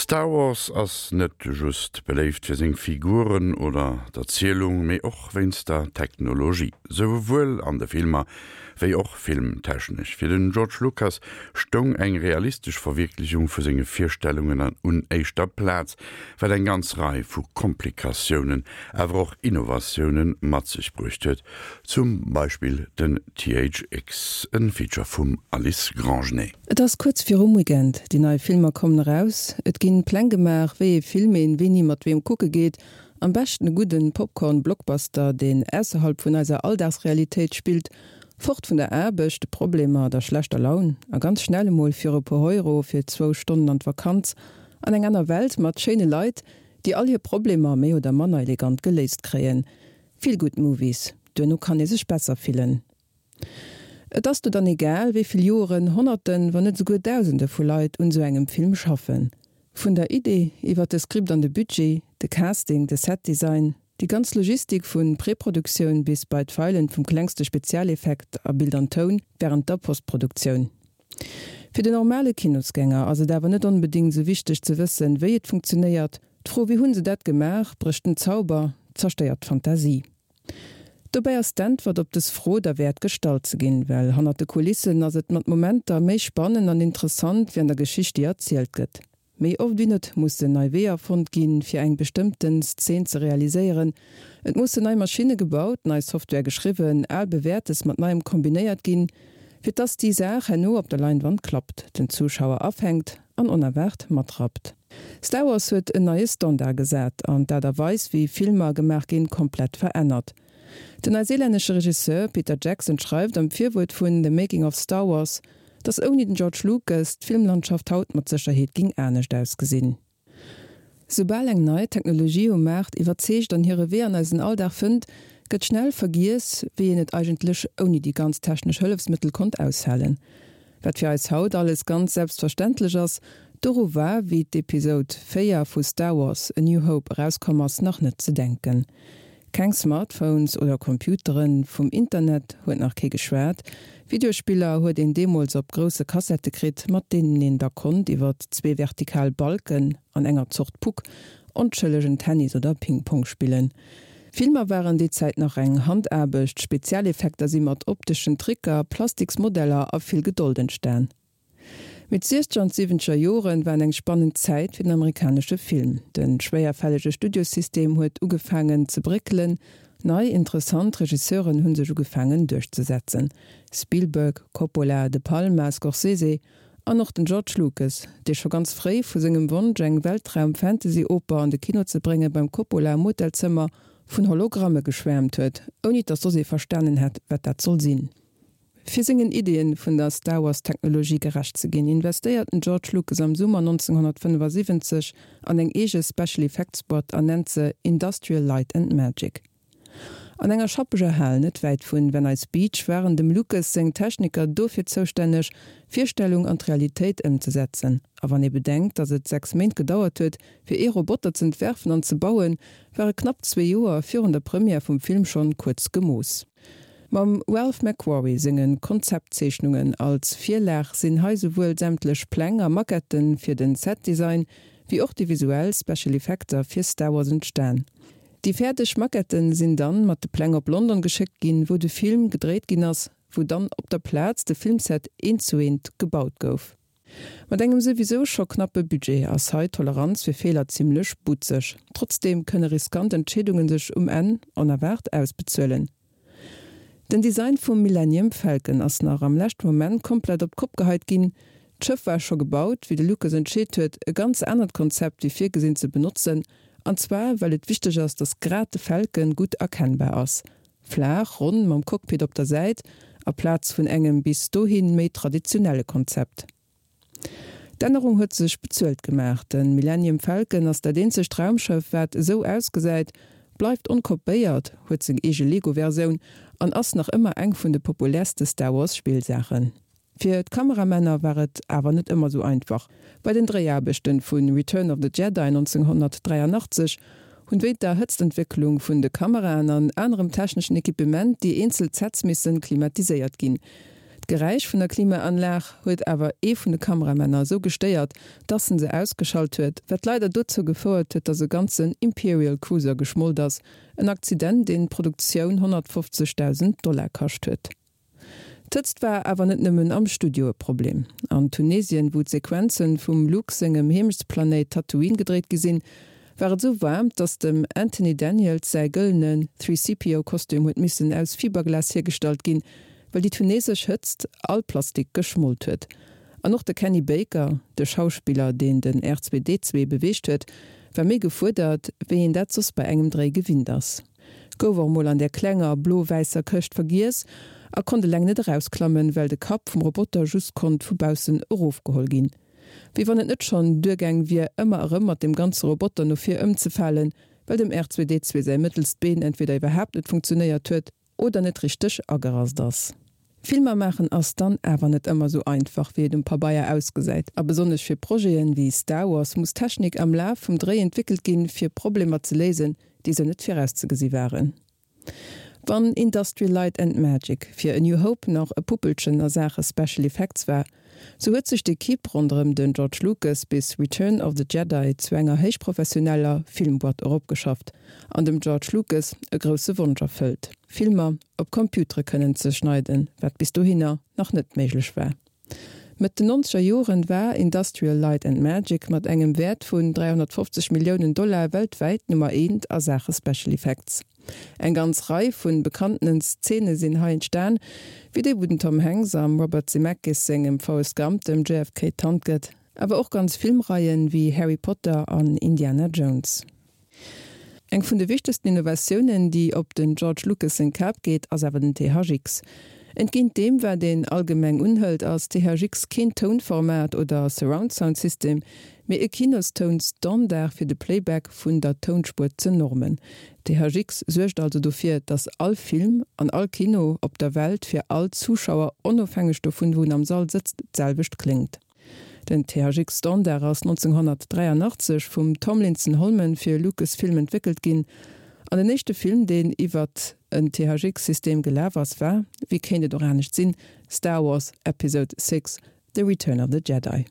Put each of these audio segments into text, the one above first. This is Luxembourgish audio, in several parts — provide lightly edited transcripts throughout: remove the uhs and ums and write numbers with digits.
Star Wars ass net just beléift fir seng Figuren oder d'Erzielung, mee och wéinst der Technologie, souwuel an de Filmer wéi och filmtechnesch. Fir den George Lucas stoung eng realistesch Verwierklechung vu senge Virstellungen un éischter Plaz, wat eng ganz Rei vu Komplikatiounen, awer och Innovatioune mat sech bruecht huet, zum Beispill den THX, e Feature vum Alice Grangenet. Et ass kuerz virum Weekend, déi nei Filmer kommen eraus, et ginn Pläng gemaach wéi ee Film een wéini mat weem kucke geet, am beschten e gudden Popcorn Blockbuster deen ausserhalb vun eiser Alldagsrealitéit spillt, fort vun der Aarbecht, de Problemer, der schlechter Laun a ganz schnell emol fir e puer Euro fir zwou Stonnen an d'Vakanz an eng aner Welt mat schéine Leit déi all hir Problemer méi oder manner elegant geléist kréien. Feel good Movies, duerno kann ee sech besser fillen. Et ass do dann egal, wéi vill Joeren, Honnerten, wann net esouguer Dausende vu Leit un esou engem Film schaffen. Vun der Idee, iwwer de Script an de Budget, de Casting, de Setdesign, déi ganz Logistik vun Preproduktioun bis bei d'Feilen vum klengste Spezialeffekt a Bild an Toun wärend der Postproduktioun. Fir den normale Kinosgänger ass et awer net onbedéngt esou wichteg ze wëssen, wéi et funktionéiert. D'Fro wéi hunn se dat gemaach brécht den Zauber, zerstéiert d'Fantasie. Dobäi ass d'Äntwert op dës Fro derwäert gestallt ze ginn, well hannert de Kulissen ass et mat Momenter méi spannend an interessant wéi an der Geschicht déi erzielt gëtt. Méi oft wéi net mussen nei Weeër fonnt ginn, fir eng bestëmmten Szen ze realiséieren. Et mussen nei Maschinne gebaut, nei Software geschriwwen, al Bewäertes mat Neiem kombinéiert ginn, fir dass déi Saach herno op der Leinwand klappt, den Zuschauer afänkt an onerwaart matrappt. Star Wars huet en neie Standard gesat an d'Aart a Weis wéi Filmer gemaach ginn komplett verännert. Den neiseelännesche Regisseur Peter Jackson schreift am Virwuert vun The Making of Star Wars, dass ouni den George Lucas d'Filmlandschaft haut mat Sécherheet ging anescht ausgesinn. Soubal eng nei Technologie um Maart iwwerzeegt an hire Wee an eisen Alldag fënnt, gëtt schnell vergiess, wéi een et eigentlech ouni déi ganz technesch Hëllefsmëttel konnt aushalen. Wat fir eis haut alles ganz selbstverständlech ass, doru war, wéi d'Episode 4 vu Star Wars, A New Hope erauskomm ass, nach net ze denken. Keng Smartphones oder Computeren, vum Internet huet nach kee geschwat, Videospiller huet een deemools op grousse Kassette kritt, mat deenen een da konnt iwwer zwee vertikal Balken an enger Zort Puck onschëllegen Tennis oder Ping-Pong spillen. Filmer waren déi Zäit nach eng Handaarbecht, Spezialeffekter si mat opteschen Tricker, Plastiksmodeller a vill Gedold entstan. Mee d'Siechzeger an d'Siwwenzeger Joren waren eng spannend Zäit fir den amerikanesche Film. De schwéierfällege Studiosystem huet ugefaangen ze bréckelen, nei interessant Regisseuren hu sech ugefaangen duerchzesetzen, Spielberg, Coppola, De Palma, Scorsese an och den George Lucas, dee scho ganz fréi vu sengem Wonsch eng Weltraum-Fantasy-Oper an de Kino ze brénge beim Coppola am Hotelzëmmer vun Hologramme geschwäermt huet, ouni datt soss ee verstanen hätt, wat dat soll sinn. Fir sengen Ideeën vun der Star Wars-Technologie gerecht ze ginn, investéiert den George Lucas am Summer 1975 an eng eege Special Effects Boîte an nennt se Industrial Light and Magic. An enger schappeger Hal net wäit vun Venice Beach waren dem Lucas seng Techniker dofir zoustänneg, d'Virstellung an d'Realitéit ëmzesetzen. A wann ee bedenkt, datt et 6 Méint gedauert huet, fir ee Roboter z'entwerfen an ze bauen, ware knapp zwee Joer virun der Première vum Film schonn kuerz gemooss. Mam Ralph McQuarrie senge Konzeptzeechnungen als Virlag sinn hei souwuel sämtlech Pläng a Maquetten fir den Setdesign, wéi och déi visuell Special Effekter fir Star Wars entstan. Déi fäerdeg Maquetten sinn dann mat de Pläng op London geschéckt ginn, wou de Film gedréit ginn ass, wou dann op der Plaz de Filmset eent zu eent gebaut gouf. Mat engem souwisou scho knappe Budget ass hei d'Toleranz fir Feeler zimmlech butzeg. Trotzdeem kënne riskant Entscheedunge sech um Enn onerwaart ausbezuelen. Den Design vum Millennium Falcon ass nach am leschte Moment komplett op d'Kopp geheit ginn. D'Schëff war scho gebaut, wéi de Lucas entscheet huet, e ganz anert Konzept wéi virgesinn ze benotzen. An zwar well et wichteg ass, dass grad de Falcon gutt erkennbar ass. Flaach, ronn, mam Cockpit op der Säit, aplaz vun engem bis dohi méi traditionelle Konzept. D'Ännerung huet sech bezuelt gemaach. De Millennium Falcon ass dat eenzegt Raumschëff, wat esou ausgesäit, bleift onkopéiert, huet seng eege Lego-Versioun an ass nach ëmmer eng vun de populärste Star Wars-Spillsaachen. Fir d'Kameramänner war et awer net ëmmer sou einfach. Bei den Dréiaarbechten vu Return of the Jedi 1983 hunn wéint der Hëtztentwécklung vun de Kameraen an anerem techneschen Equipement déi eenzel Sets missen klimatiséiert ginn. D'Geräisch vun der Klimaanlag huet awer ee vun de Kameramänner esou gestéiert, dass en se ausgeschalt huet, wat leider dozou gefouert huet, dass e ganzen Imperial Cruiser geschmolt ass, en Akzident, deen d'Produktioun 150.000 Dollar kascht huet. D'Hëtzt war awer net nëmmen am Studio e Problem. An Tunesien, wou d'Sequenzen vum Luke sengem Heemechtsplanéit Tatooine gedréit gi sinn, war et esou waarm, dass dem Anthony Daniels säi gëllene 3CPO-Kostüm huet missen aus Fiberglas hiergestallt ginn, well déi tunesesch Hëtzt all Plastik geschmolt huet. An och de Kenny Baker, de Schauspiller, deen den R2-D2 beweegt huet, war méi gefuerdert, wéi een dat soss bei engem Dréi gewinnt ass. Gouf och mol an där klenger blo-wäisser Këscht vergiess a konnt eleng net erausklammen, well de Kapp vum Roboter just konnt vu baussen erofgeholl ginn. Wéi wann et net schonn duergaang wier, ëmmer erëm mat dem ganze Roboter no vir ëmzefalen, well dem R2D2 säi mëttelst Been entweder iwwerhaapt net funktionéiert huet oder net richteg agerast ass. Filmer maachen ass dann awer net ëmmer sou einfach wéi et um Pabeier ausgesäit. A besonnesch fir Projeten wéi Star Wars muss Technik am Laf vum Dréi entwéckelt ginn fir Problemer ze léisen, déi sou net virauszegesi waren. Wann Industrial Light and Magic fir A New Hope nach e Puppelchen a Saache Special Effects war, sou huet sech d'Equipe ronderëm den George Lucas bis Return of the Jedi zu enger héichprofessioneller Filmboîte eropgeschafft an dem George Lucas e grousse Wonsch erfëllt, Filmer op Computere kënnen ze schneiden, wat bis dohinner nach net méiglech war. Mëtt den nonzeger Joren war Industrial Light and Magic mat engem Wäert vun 350 Milliounen Dollar weltwäit Nummer eent a Saache Special Effects. Eng ganz Rei vun bekanntenen Szene sinn hei entstan, wéi déi wou den Tom Hanks am Robert Zemeckis sengem Forrest Gump dem JFK d'Hand gëtt, awer och ganz Filmreien wéi Harry Potter an Indiana Jones. Eng vun de wichtegsten Innovatiounen, déi op den George Lucas seng Kap geet, ass awer den THX. Entgéint deem, wat een allgemeng unhëlt, ass THX keen Tounformat oder Surround-Sound-System, mee e Kinostoun-Standard fir de Playback vun der Tounspuer ze normen. THX suergt also dofir, datt all Film an all Kino op der Welt fir all Zuschauer, onofhängeg dovun, wou en am Sall sëtzt, d'selwecht kléngt. Den THX Standard ass 1983 vum Tomlinson Holman fir Lucasfilm entwéckelt ginn, an den éischte Film deen iwwert en THX System gelaf ass war, wéi kéint et och anescht sinn, Star Wars Episode VI, The Return of the Jedi.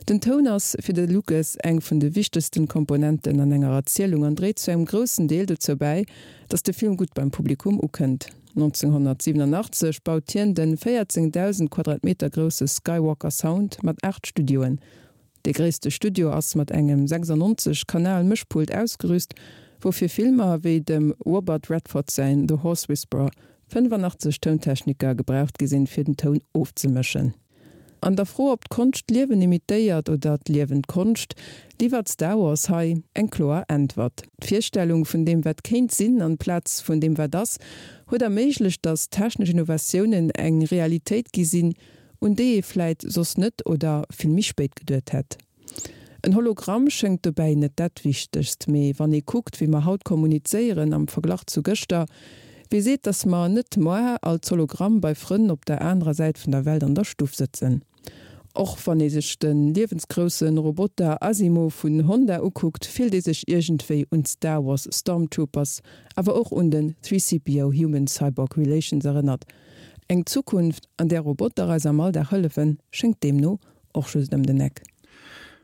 Den Toun ass fir de Lucas eng vun de wichtegsten Komponenten an enger Erzielung an dréit zu engem groussen Deel dozou bäi, datt de Film gutt beim Publikum ukënnt. 1987 baut hien de 14.000 Quadratmeter grousse Skywalker Sound mat 8 Studioen. Dee gréisste Studio ass mat engem 96 Kanal Mëschpult ausgerüst, wou fir Filmer wéi dem Robert Redford säin The Horse Whisperer 85 Tountechniker gebraucht gi sinn, fir den Toun ofzemëschen. An der Fro, ob d'Konscht d'Liewen imitéiert oder d'Liewen d'Konscht, liwwert Star Wars hei eng kloer Äntwert. D'Virstellung vun deem wat kéint sinn an Plaz vun deem wat ass, huet erméiglecht, datt technesch Innovatiounen eng Realitéit gi sinn, un déi ee vläit soss net oder vill méi spéit geduet hätt. En Hologramm schéngt dobäi net dat Wichtegst, mee wann ee kuckt, wéi mer haut kommunizéieren am Verglach zu gëschter, wie seet, dass mer net moar als Hologramm bei Frënn op der anerer Säit vun der Welt an der Stuff sëtzen? Och wann ee sech de liewensgrousse Roboter Asimo vun Honda ukuckt, fillt ee sech iergendwéi un d'Star Wars Stormtroopers, awer och un den 3CPO Human-Cyborg Relations erënnert. Eng Zukunft, an där Roboter eis am Alldag hëllefen, schéngt deemno Och just ëm den Eck.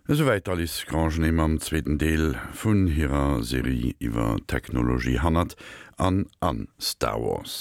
Esouwäit d'Alice Grangenet mam zweeten Deel vun hirer Serie iwwer d'Technologie hannert an a Star Wars.